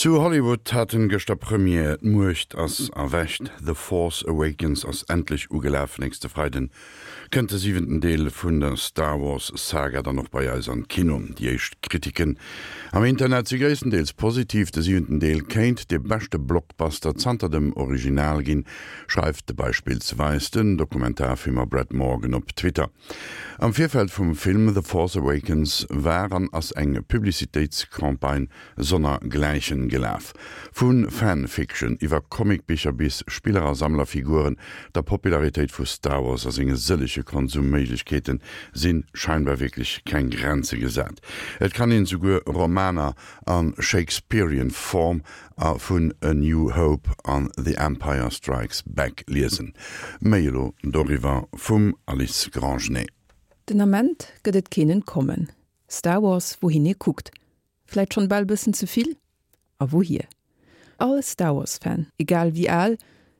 Zu Hollywood haten gëschter Première, D'Muecht ass erwächt, The Force Awakens ass endlech ugelaf. Nächste Freiden kënnt de siwenten Deel vun der Star Wars Saga dann och bei eis an d'Kino. Déi éischt Kritiken am Internet si gréisstendeels positiv, de siwenten Deel kéint de beschte Blockbuster zanter dem Original ginn, schreift beispillsweis den Dokumentarfilmer Brett Morgen op Twitter. Am Virfeld vum Film The Force Awakens war an ass eng Publicitéitscampagne sonner Gläichen gelaf. Vu Fan-Fiction iwwer Comicbicher bis Spiller a Sammlerfiguren, der Popularitéit vu Star Wars a senge sëllege Konsumméiglechkeete si scheinbar wierklech keng Grenze gesat. Et kann een souguer Romaner a Shakespearean Form a vun A New Hope an The Empire Strikes Back liesen. Méi elo doriwwer vum Alice Grangenet. Den Ament gëtt et keen Entkommen. Star Wars, wouhin ee kuckt. Vläit schonn bal bëssen ze vill? A wouhier? All Star Wars Fan, egal wéi al,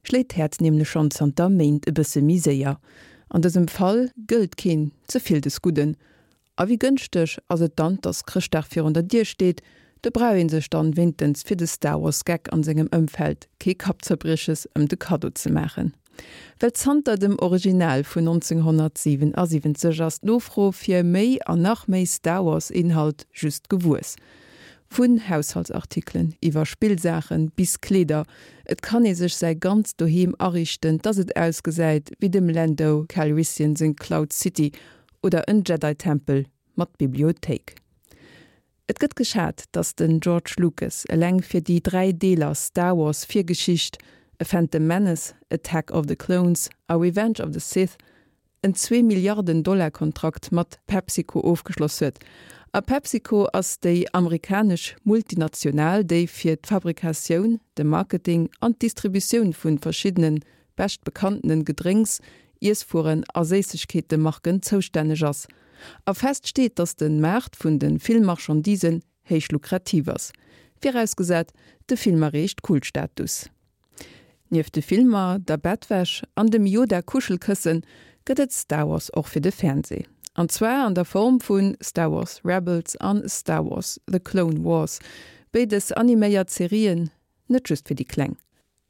schléit d'Häerz nämlech schonn zanter Méint e bësse méi séier. An dësem Fall gëllt keen ze vill des Gudden. A wéi gënschteg ass et dann, dass Chrëschtdag virun der Dier steet, do brauch een sech dann wéintens fir de Star Wars Geck an sengem Ëmfeld kee Kappzerbrieches ëm de Kaddo ze maachen. Well zanter dem Original vun 1977 ass d'Nofro fir méi an nach méi Star Wars Inhalt just gewuess. Vun Haushaltsartikelen iwwer Spillsaachen bis Kleeder, et kann ee sech säi ganzt Doheem ariichten, dass et ausgesäit wéi dem Lando Calrissian seng Cloud City oder en Jedi Tempel mat Bibliothéik. Et gëtt geschat, datt den George Lucas eleng fir déi 3 Deeler Star Wars Virgeschicht, A Phantom Menace, Attack of the Clones a Revenge of the Sith, en zwee Milliarden Dollar Kontrakt mat PepsiCo ofgeschloss huet. A PepsiCo ass déi amerikanesch Multinational, déi fir d'Fabrikatioun, de Marketing an d'Distributioun vu verschiddene bescht bekanntenen Gedrénks, Iesswueren a Séissegkeetemarken zoustänneg ass. A fest steet, dass de Maart vun de Filmmarchandisen héich lukrativ ass, virausgesat de Film erreecht Kultstatus. Nieft de Filmer, der Bettwäsch an dem Yoda-Kuschelkëssen gëtt et Star Wars och fir de Fernsee. An zwar an der Form vu Star Wars Rebels an Star Wars, The Clone Wars, béides animéiert Serien, net just fir déi Kleng.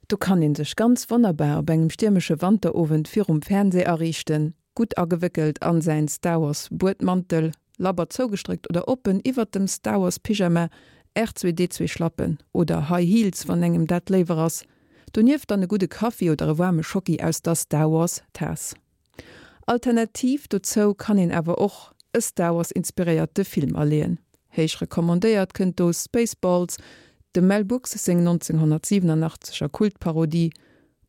Do kann een sech ganz wonnerbar op engem stiermesche Wanterowend virum Fernseh ariichten, gutt agewéckelt an säin Star Wars Buedmantel, labber zougestréckt oder oppen iwwert dem Star Wars Pyjama, R2D2 Schlappen oder High Heels wann engem dat léiwer ass. Donieft dann e gudde Kaffi oder e waarme Schocki aus der Star Wars Taass. Alternativ dozou kann een awer och e Star Wars inspiréierte Film aleeën. Héich recommandéiert kënnt do Spaceballs, dem Mel Brooks seng 1987 er Kultparodie,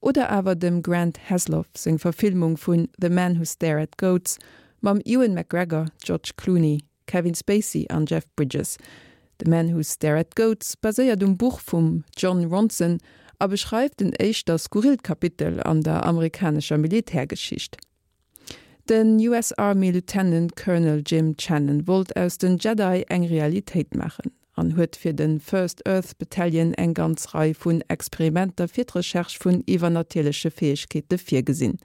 oder awer dem Grant Heslov seng Verfilmung vun The Man Who Stare at Goats mam Ewan McGregor, George Clooney, Kevin Spacey an Jeff Bridges. The Man Who Stare at Goats baséiert um Buch vum Jon Ronson a beschreift en éischter skurrillt Kapitel an der amerikanescher Militärgeschicht. Den US Army Lieutenant Colonel Jim Channon wollt aus den Jedi eng Realitéit maachen an huet fir de First Earth Battalion eng ganz Rei vun Experimenter fir d'Recherche vun iwwernatierleche Fäegkeete virgesinn.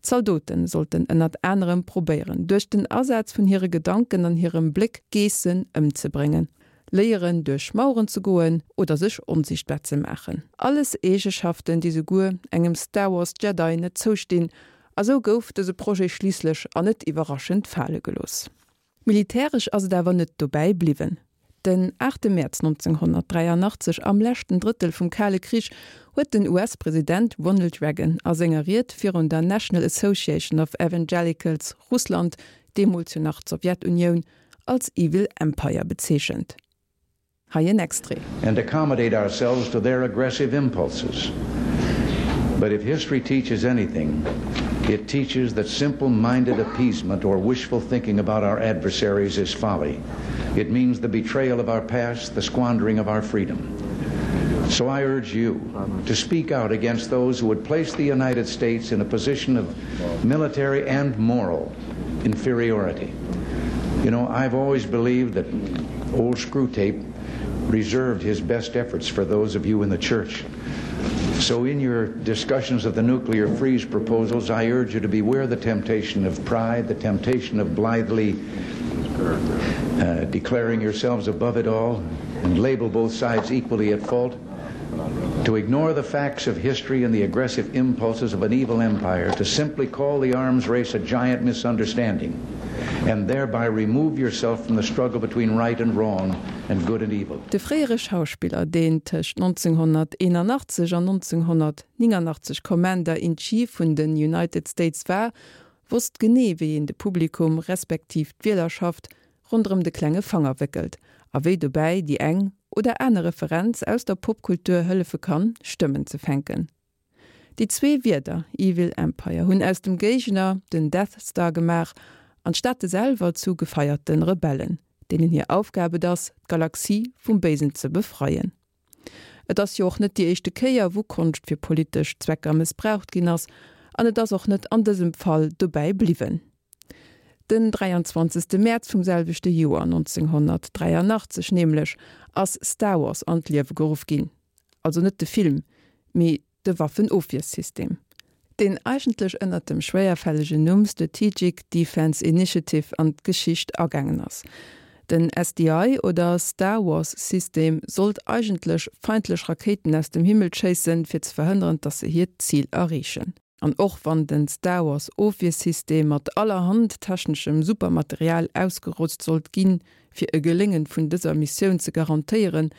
D'Zaldote sollten ënnert anerem probéieren, duerch den Asaz vun hire Gedanken an hirem Bléck Geessen ëmzebréngen, léieren duerch Maueren ze goen oder sech onsiichtbar ze maachen. Alles Eegeschaften, déi souguer engem Star Wars Jedi net zoustinn, a sou gouf dëse Projet schliisslech an net iwwerraschend fale gelooss. Militäresch ass et awer net dobäi bliwwen. Den 8 Mäerz 1983, am leschten Drëttel vum Kale Krich, huet den US-President Ronald Reagan a senger Ried virun der National Association of Evangelicals Russland, deemools jo nach d'Sowjetunioun, als Evil Empire bezeechent. Hei en Extrait. And accommodate ourselves to their aggressive impulses. But if history teaches anything, it teaches that simple-minded appeasement or wishful thinking about our adversaries is folly. It means the betrayal of our past, the squandering of our freedom. So I urge you to speak out against those who would place the United States in a position of military and moral inferiority. You know, I've always believed that old Screwtape reserved his best efforts for those of you in the church. So in your discussions of the nuclear freeze proposals, I urge you to beware the temptation of pride, the temptation of blithely. Uh, declaring yourselves above it all and label both sides equally at fault, to ignore the facts of history and the aggressive impulses of an evil empire, to simply call the arms race a giant misunderstanding, and thereby remove yourself from the struggle between right and wrong and good and evil. De fréiere Schauspiller, deen tëscht 1981 an 1989 Commander in Chief vun den United States war, wosst genee wéi een de Publikum, respektiv d'Wielerschaft, ronderëm de klenge Fanger wéckelt a wéi dobäi déi eng oder aner Referenz aus der Popkultur hëllefe kann, Stëmmen ze fänken. Déi zwee Wierder Evil Empire hunn aus dem Géigner den Death Star gemaach an d'Staate selwer zu gefeierte Rebellen, deenen hir Aufgab et ass, d'Galaxie vum Béisen ze befreien. Et ass jo och net déi éischte Kéier, wou Konscht fir politesch Zwecker mëssbraucht ginn ass, an et ass och net an dësem Fall dobäi bliwwen. Den 23. Mäerz vum selwechte Joer, 1983 nämlech, ass Star Wars an d'Liewe geruff ginn. Also net de Film, mee de Waffenofwiersystem, deen eigentlech ënnert dem schwéierfällegen Numm Strategic Defense Initiative an d'Geschicht agaangen ass. Den SDI oder Star Wars System sollt eigentlech feindlech Rakéiten aus dem Himmel schéissen, fir ze verhënneren, dass se hiert Zil erreechen. An och wann den Star Wars Ofwiersystem mat allerhand techneschem Supermaterial ausgerotzt sollt ginn, fir e Geléngen vun dëser Missioun ze garantéieren,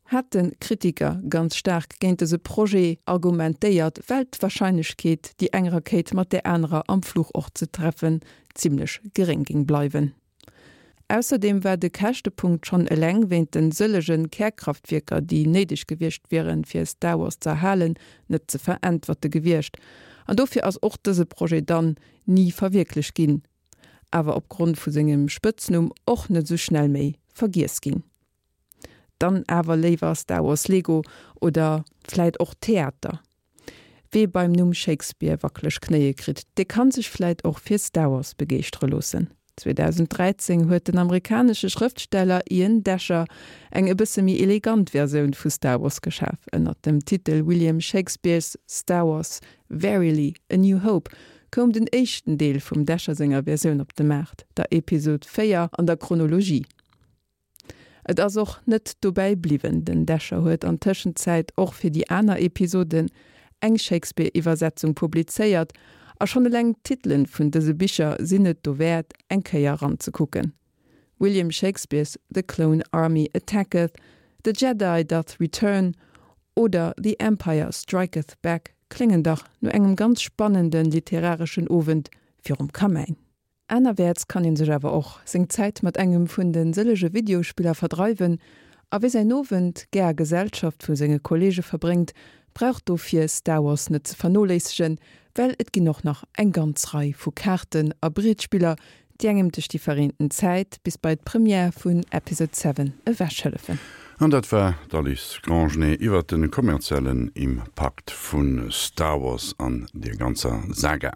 hate Kritiker ganz staark géint dëse Projet argumentéiert, well d'Warscheinlechkeet, déi eng Rakéit mat där anerer am Fluch och ze treffen, zimmlech geréng géing bleiwen. Ausserdeem war de Käschtepunkt schonn eleng wéint den sëllege Kärkraftwierker, déi néideg gewiescht wieren, fir Star Wars ze erhalen, net ze veräntwerte gewiescht. An dofir ass och dëse Projet dann ni verwierklecht ginn, awer opgrond vu sengem Spëtznumm och net esou schnell méi vergiess ginn. Dann awer léiwer Star Wars Lego oder vläit och Theater. Wee beim Numm Shakespeare wackeleg Knéie kritt, dee kann sech vläit och fir Star Wars begeeschtere loossen. 2013 huet den amerikanesche Schrëftsteller Ian Doescher eng e bësse méi elegant Versioun vu Star Wars geschaf. Ënnert dem Titel William Shakespeare's Star Wars, Verily, A New Hope koum den éischten Deel vum Doescher senger Versioun op de Maart, der Episod 4 an der Chronologie. Et ass och net dobäi bliwwen, den Descher huet an Tëschenzäit och fir déi aner Episoden eng Shakespeare-Iwwersetzung publizéiert, a schonn eleng d'Titelen vun dëse Bicher sinn et dowäert, eng Kéier eranzekucken, William Shakespeare's The Clone Army Attacketh, The Jedi Doth Return oder The Empire Striketh Back kléngen dach no engem ganz spannende literareschen Owend virum Kamäin. Anerwäerts kann een sech awer och seng Zäit mat engem vun de sëllege Videospiller verdreiwen, a wie säin Owend gär a Gesellschaft vu senge Kolleege verbréngt, brauch dofir Star Wars net ze vernoléissegen, well et ginn och nach eng ganz Rei vu Kaarten a Brietspiller, déi engem duerch déi verreenten Zäit bis bei d'Première vun Episode 7 ewech hëllefen. An dat war d'Alice Grangenet iwwert de kommerziellen Impakt vu Star Wars an der ganzer Saga.